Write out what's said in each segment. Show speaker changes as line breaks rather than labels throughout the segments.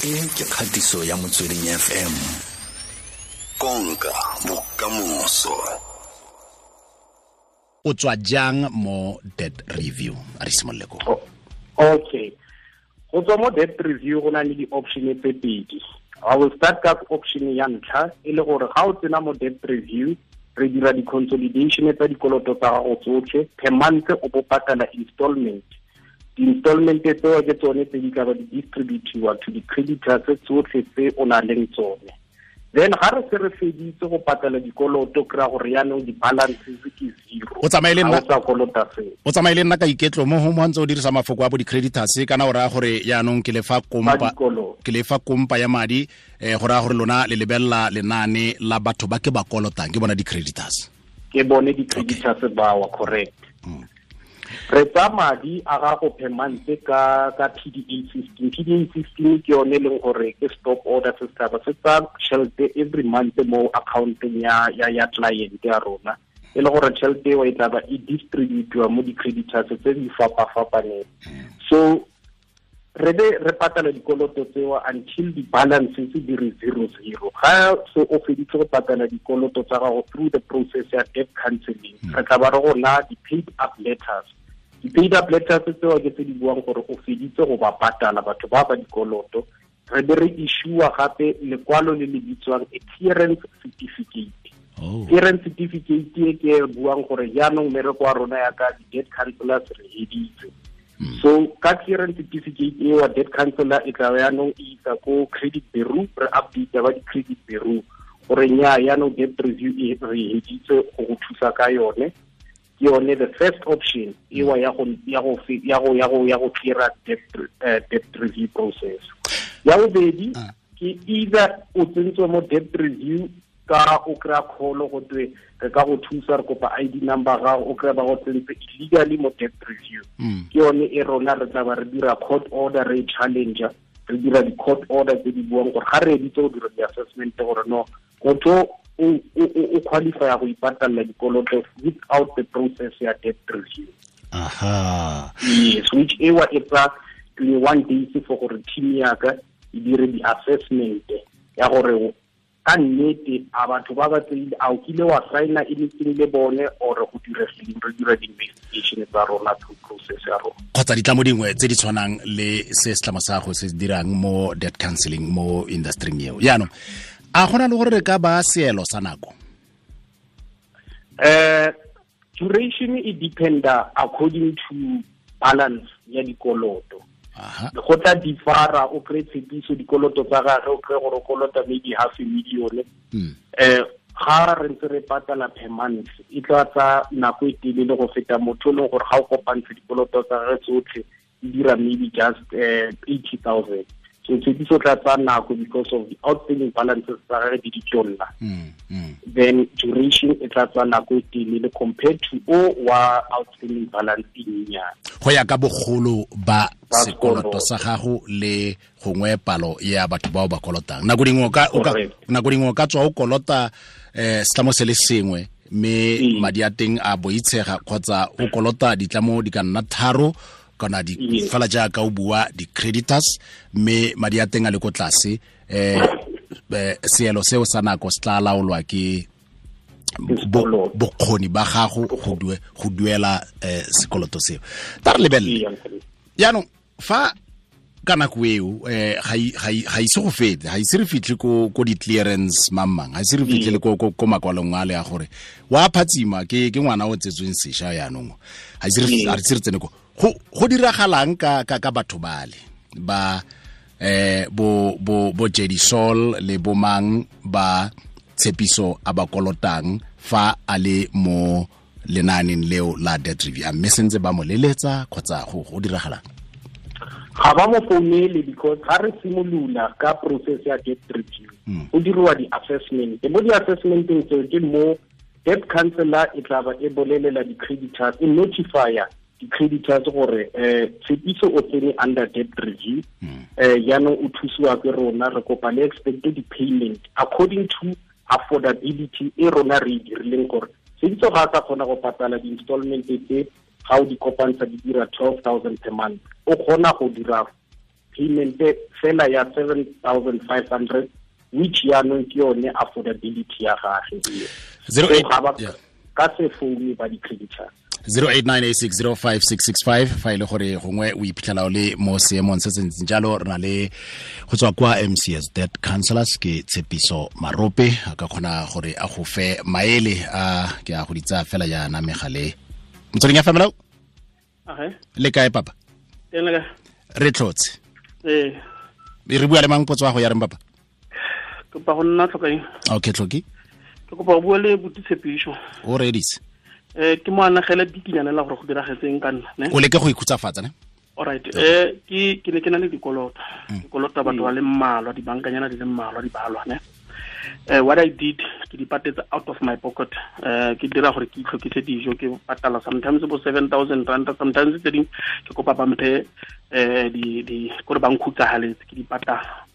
E ke kgatiso ya Motsweding FM. Konka bokamoso.
O tswa jang mo debt review? A re simolole ko.
Okay. Go tswa mo debt review go na le di-option tse pedi. I will start ka option ya ntlha, e le gore ga o tsena mo debt review, re dira di-consolidation tsa dikoloto tsa gago tsotlhe. Per month o bo patala installment. Di-installment tseo ke tsone tse di tla ba di distributiwa to di-creditors tsotlhe tse o nang leng tsone. Then ga re se re feditse go patala dikoloto, kry-a gore yaanong di-balances ke zero.
O tsamaye le nna.
Ga o sa kolota seo.
O tsamaye le nna ka iketlo mo go mo ntse o dirisa mafoko a bo di-creditors, kana o raya gore yaanong ke lefa kompa,
Ba dikoloto.
ke lefa kompa ya madi, go raya gore lona le lebelela lenaane la batho ba ke ba kolotang, ke bona di-creditors.
Ke bone di-creditors bao, correct. Re tsa madi a gago per month ka PDA 15. PDA 15 ke yone e leng gore ke stop order se setšhaba se tsa tšhelete every month mo accountong ya client ya rona, e le gore tšhelete eo e tla ba e distributiwa mo di-creditors tse di fapa-fapaneng. So re be re patala dikoloto tseo until di-balances di re zero zero. Ga so o feditse go patala dikoloto tsa gago through the process ya debt counseling, re tla ba re go na di-paid up letters. Di-paid up letters tseo ke tse di buang gore o feditse go ba patala batho ba ba dikoloto. Re be re issue-a gape lekwalo le le bitswang a clearance certificate. Clearance certificate e ke e buang gore jaanong mmereko wa rona ya ka di-debt counselors re heditse. So ka clearance certificate e wa debt counselor e tla yaanong e isa ko credit bureau, re update ba di-credit bureau gore nya yaanong debt review e re heditse go go thusa ka yone. Ke yone the first option ewa ya go clear debt review process. Ya bobedi, ke either o tsentswe mo debt review ka o kry-a call go twe re ka go thusa, re kopa ID number gago, o kry-a ba go tsentse illegally mo debt review. Ke yone e rona re tla ba re dira court order, re challenger, re dira di-court order tse di buang gore ga re editse go dira di-assessment gore no motho o qualify go ipatalla dikoloto without the process ya debt review. Yes, which ewa e tsa 21 days for gore team ya ka e dire di-assessment ya gore ka nnete a batho ba ba tseile, a o kile wa signa anything le bone or go diregileng, re dira di-investigation tsa rona through process ya rona.
Kgotsa ditlamo dingwe tse di tshwanang le se setlamo sa go se dirang mo debt counseling mo industry eo. Jaanong a gona le gore re ka ba seelo sa nako?
Duration e dependa according to balance ya dikoloto. Go tla differa, o kry tshepiso dikoloto tsa gagwe, o kry gore o kolota maybe half a million. Ga re ntse re patala per month, e tla tsa nako e telele go feta motho e leng gore ga o kopantshe dikoloto tsa gagwe tsotlhe e dira maybe just 80,000. So tshepiso tla tsa nako because of the outstanding balances tsa gagwe di ditonna. Then duration e tla tsa nako e telele compared to o wa outstanding balance e nyenyane.
Go ya ka bogolo ba
Ba
sekoloto
sekoloto.
sa gago le gongwe palo ya batho bao ba kolotang. Nako dingwe o ka, o ka, nako dingwe o ka tswa o kolota, setlamo se le sengwe mme madi a teng a boitshega, kgotsa o kolota ditlamo di ka nna tharo kana di fela jaaka o bua di-creditors mme madi a teng a le ko tlase, seelo seo sa nako se tla laolwa ke
Sekoloto.
bokgoni ba gago go duela sekoloto seo. Ta re lebelele. Jaanong fa ka nako eo, ga ise go fete, ga ise re fitlhe ko di-clearance mang-mang, ga ise re fitlhe le ko makwalong a le a gore wa phatsima ke ngwana o tsetsweng sešwa jaanong, ga ise re ga ise re tsene ko. Go diragalang ka batho bale ba, bo Jedi Sol le bo mang ba Tshepiso a ba kolotang fa a le mo lenaaneng leo la debt review, a mme sentse ba mo leletsa kgotsa go diragalang?
Ga ba mo founele because ga re simolola ka process ya debt review, go diriwa di-assessment. Mo di-assessmenteng tseo ke mo debt counselor e tla ba e bolelela di-creditors, e notifya di-creditors gore, Tshepiso o tsene under debt review, jaanong o thusiwa ke rona, re kopa le expected payment according to affordability e rona re e dirileng gore Tshepiso ga a sa kgona go patala di-installment tse ga o di kopantsha di dira 12,000 per month, o kgona go dira payment fela ya 7,500 which yaanong ke yone affordability ya gage. So ga ba ka se foune ba di-creditors.
0898605665 fa ile gore gongwe o iphitlhela o le mo seemong se se ntseng jalo. Re na le go tswa kwa MCS Debt Counselors ke Tshepiso Marope, a ka kgona gore a go fe maele a ke a go ditsa fela jaana megale. Motsweding ya family. Le kae papa? Re tlotse. Re bua le mang potso ya go ya reng papa?
Kopa go nna tlhokaeng.
Okay, tlhoki.
Ke kopa go bua le buti Tshepiso.
O redise.
Ke mo anagela bikinyana la gore go diragetseng ka nna, ne?
O leke go ikhutsafatsa, ne?
All right. Ke ne ke na le dikoloto. Dikoloto batho ba le mmalwa, dibankanyana di le mmalwa di balwa, ne? What I did, ke di patetse out of my pocket. Ke dira gore ke itlhokise dijo, ke patala sometimes bo 7,000 rand, sometimes tse ding ke kopa ba mphe di gore ba nkhutsahaletse, ke di patala.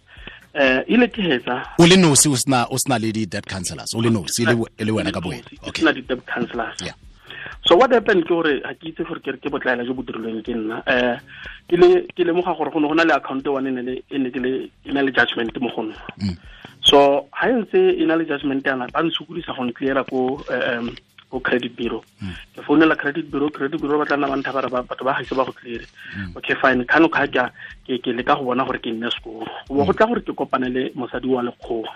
Ile ke hetsa
o le nosi, o sna le di debt counselors, o le nosi le wena ka boena.
Okay, sna di debt counselors. Yeah. So what happened ke gore ha ke itse gore ke re ke botlaela jo bo dirilweng ke nna. Ke lemoga gore go ne go na le account one e ne ke le e na le judgment mo go nna. So ha ntse e na le judgment yana ba ntshukulisa go ncleara ko ko credit bureau. Ke founela credit bureau ba tla nna ba ntha ba re batho ba gaise ba go clear. Okay, fine. Kano ka ke ke leka go bona gore ke nne sekolo. Go go tla gore ke kopane le mosadi wa lekgowa.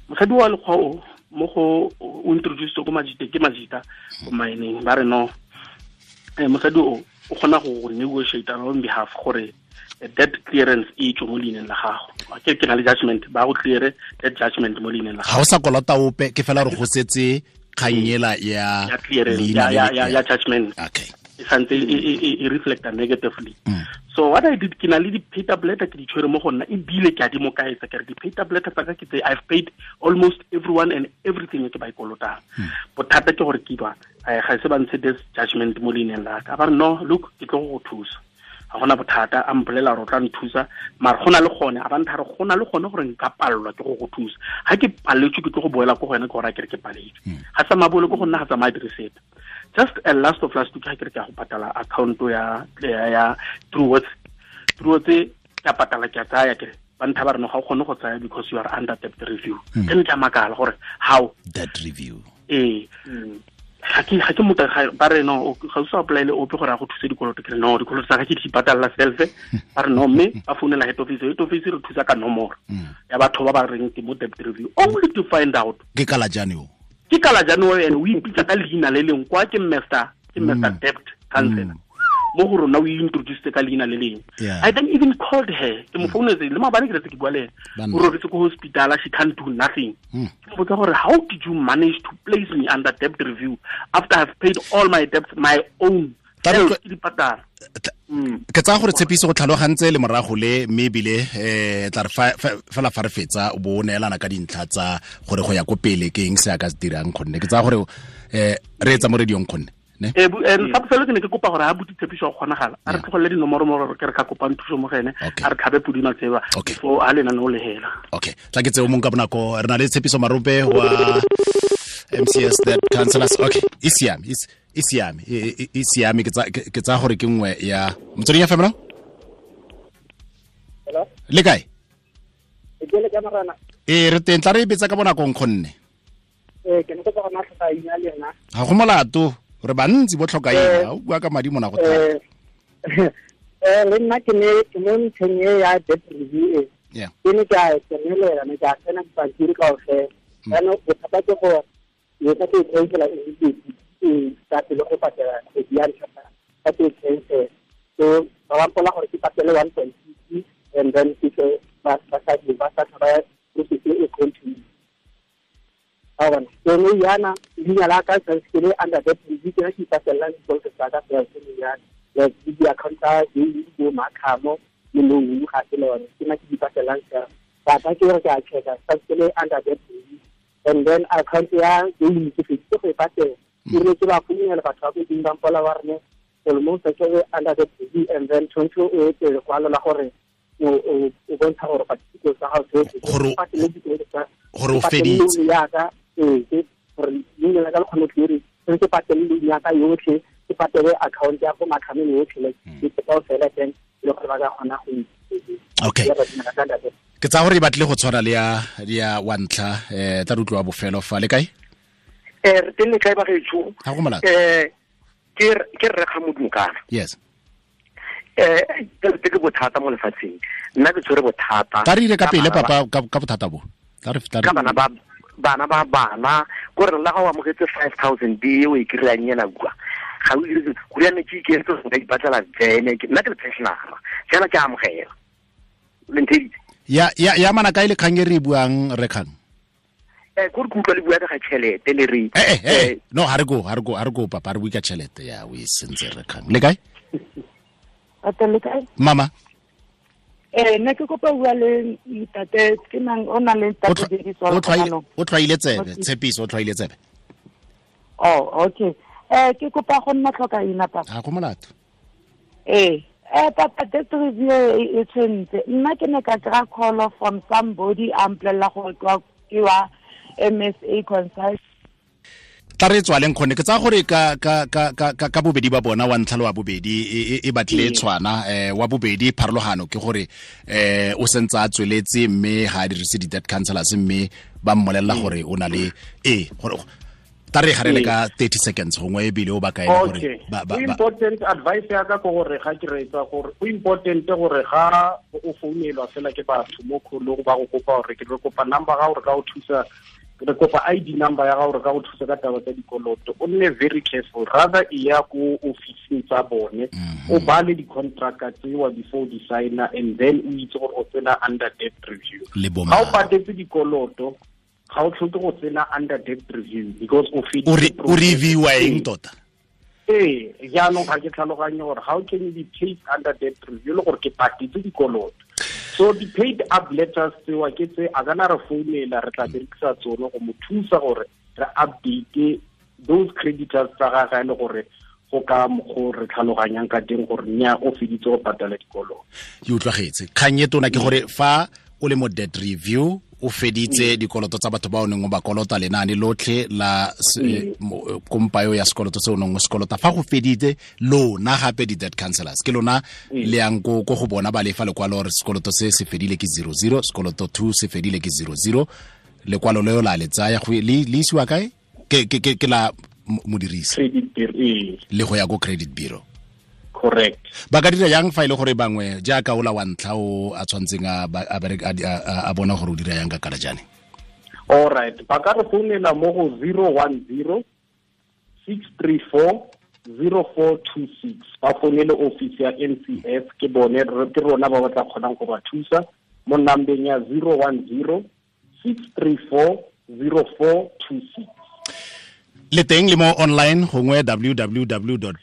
Mosadi wa lekgowa o mo go o introduce ko majita, ke majita ko mining ba re no. Mosadi o o kgona go negotiate on behalf gore debt clearance e tswe mo leineng la gago. Ke na le judgment, ba go clear debt judgment mo leineng la gago.
Ga o sa kolota ope, ke fela re go setse kganyela ya
clearance ya judgment.
Okay.
E santse e reflect negatively. So what I did, ke na le di pay tablet ke di tshwere mo go nna, ebile ke a di mo kaetsa ke re di pay tablet tsa ka ke tse I've paid almost everyone and everything ke ba ikolotang. Bothata ke gore ke ba ga se ba ntshe this judgment mo leineng la ka. Ba re no, look, ke tlo go thusa. Ga gona bothata, a mpolela gore o tla nthusa, mara go na le gone a ba ntha re go na le gone gore nka palelwa ke go go thusa. Ga ke paletswe ke tlo go boela ko go wena ke gore a ke re ke paletswe. Ga tsamaya boele ko go nna, ga tsamaya dire sepe. Just a last of last week ha ke re ke a go patala account ya Truworths ke a patala ke a tsaya ke re ba ntha ba re no ga o kgone go tsaya because you are under debt review. Ke ne ke a makala gore how
debt review.
Ga ke motho ba re no ga o sa apply le ope gore a go thuse dikoloto. Ke re no, dikoloto tsa ka ke di patalla self. Ba re no, mme ba founela head office, head office re thusa ka nomoro ya batho ba ba reng ke mo debt review, only to find out
ke kala jane o.
Ke kala jane o ene o ipitsa ka leina le leng kwa ke Mr. Debt Counselor. Mo go rona o introduce ka leina le leng. I then even called her. Ke mo founetse le maabane ke re ke bua le ene. O robetse ko hospital, she can't do nothing. Ke mo botsa gore how did you manage to place me under debt review after I've paid all my debts, my own self ke di patala.
Ke tsaya gore Tshepiso go tlhalogantse le morago le mme ebile tla re fela fa re fetsa o bo o neelana ka dintlha tsa gore go ya ko pele ke eng se a ka se dirang, gonne ke tsaya gore re etsa mo radiong gonne ne.
Sa bofelo ke ne ke kopa gore ha buti Tshepiso go kgonagala a re tlogelele dinomoro mo gore ke re ka kopang thuso mo go ene, a re tlhabe podi matseba fo a lena no le hela.
Okay, tla ke tseo mong ka bonako. Re na le Tshepiso Marope wa MCS Debt Counselors. Okay, e siame, e siame, e siame. Ke tsa gore ke nngwe ya motsweding ya family.
Hello,
le kae?
Ke le ka marana.
Re teng, tla re betsa ka bonako nkgonne.
Ke ne ke go na tlhoka ina le yena.
Ga go molato, re bantsi bo tlhoka ina, o bua ka madi mona go thata.
Le nna ke ne ke mo ntlheng e ya debt review e. Ke ne ke a tsenelela, ne ke a tsena dipampiri kaofela. Jaanong bothata ke gore ke ka ke cancela immediately, ka pele go patela kgwedi ya ntlha ka ke cancel. So ba ba mpola gore ke patele 1.6 and then ke ba sa ba process e continue. So no yana leina la ka santse ke le under debt review, ke ke ipatellang dikoloto tsa ka fela ke yana like di account tsa di bo makhamo le loan ga ke le yone, ke nna ke di patelang fela. But ke re ke a checka santse ke le under debt review, and then account ya ke ke feditse go e patela. Ke rile ke ba founela batho ba ko ding ba mpola ba re almost ke le under debt review, and then tshwanetse o etse lekwalo la gore o bontsha gore dikoloto tsa gago tsotlhe
gore o feditse
yaka gore leina la ka le kgone clear, ke patele loan ya ka yotlhe, ke Ke patele account ya go makhameng yotlhe like ke kaofela then le gore ba ka kgona go.
Okay. Ke tsa gore e batle go tshwana le ya wa ntlha tla re utlwa bofelo fa le kae?
Re teng le kae ba gaetsho?
Ha go molato.
Ke rre ga Modumokana.
Yes.
Ke bothata mo lefatsheng. Nna ke tshwere bothata.
Ka re ile ka pele papa ka bothata bo. Ka re
ka bana ba bana go re la ga o amogetse 5000 di o e kry-ang ena kwa. Ga o dire go ya ne ke iketse go ka ipatlela vene ke nna ke le pensionera. Jana ke amogela. Le ntheditse.
Ya mana kae le kgang e re buang re kgang?
Go re kutlwa le bua ka tšhelete le re.
No ha re go papa re bua ka tšhelete ya o e sentse re kgang. Le kae?
Ate le kae?
Mama.
Nna ke kopa bua le ntate ke nang o na le ntate Tshepiso.
O tlwaile tsebe, Tshepiso o tlwaile tsebe.
Oh, okay. Ke kopa go nna tlhoka ina papa.
Ha go molato.
Papa debt review e tshwentse. Nna ke ne ka kry-a call from somebody a mpolelela gore ke wa MSA consult.
Tla re tswaleng kgone ke tsa gore ka bobedi ba bona wa ntlha le wa bobedi e batle tshwana wa bobedi pharologano ke gore o sentse a tsweletse mme ga a dirise di-debt counselors mme ba mmolelela gore o na le gore tla re garele ka 30 seconds gongwe ebile o ba kae gore
ba important advice ya ka ke gore ga ke reetsa gore go important gore ga o founelwa fela ke batho mo kholong ba go kopa gore ke re kopa number ga gore ka o thusa re kopa ID number ya gago re ka go thusa ka taba tsa dikoloto. O nne very careful, rather e ya ko officing tsa bone o bale di-contract tsewa before di signa and then o itse gore o tsena under debt review. Ga o patetse dikoloto ga o tlhoke go tsena under debt review because o feditse.
O reviewa eng tota?
Jaanong ga ke tlhaloganye gore how can you be paid under debt review le gore ke patetse dikoloto. So the paid up letters tsewa ke tse a kana re founela re tla berekisa tsone go mo thusa gore re update those creditors tsa gagwe e le gore go ka go re tlhaloganyang ka teng gore nya o feditse go patala dikoloto.
Ke utlwagetse. Kgang e tona ke gore fa o le mo debt review o feditse dikoloto tsa batho ba o neng o ba kolota lenaane lotlhe la kompayo ya sekoloto se o neng o sekolota fa go feditse lona gape di-debt counselors ke lona le yang ko go bona ba lefa lekwalo gore sekoloto se se fedile ke 00 sekoloto 2 se fedile ke 00 lekwalo leo la le tsaya le isiwa kae ke la modirisi le go ya ko credit bureau.
Correct.
Ba ka dira yang fa ile gore bangwe jaaka ola wa ntlha o a tshwantseng a bona gore o dira yang ka kalajane?
All right. Ba ka re founela mo go 010 634 0426. Ba founele office ya MCS ke bone ke rona ba ba tla kgonang go ba thusa mo nambeng ya 010 634 0426.
Le teng le mo online gongwe www.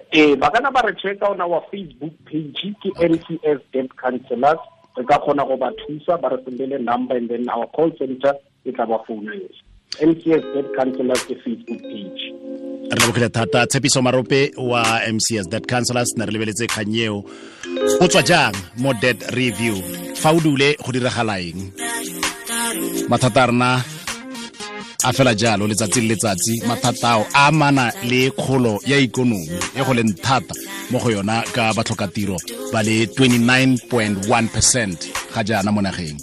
Ba kana ba re check on our Facebook page ke MCS Debt Counselors. Re ka kgona go ba thusa ba re sendele number and then our call center e tla ba founela. MCS Debt Counselors ke Facebook page.
Re lebogile thata Tshepiso Marope wa MCS Debt Counselors ne re lebeletse kgang eo. O tswa jang mo debt review? Fa o dule go diragala eng? Mathata a rena a fela jalo letsatsi le letsatsi mathata ao a amana le kgolo ya ikonomi e go leng thata mo go yona ka batlhokatiro ba le 29.1% ga jaana mo nageng.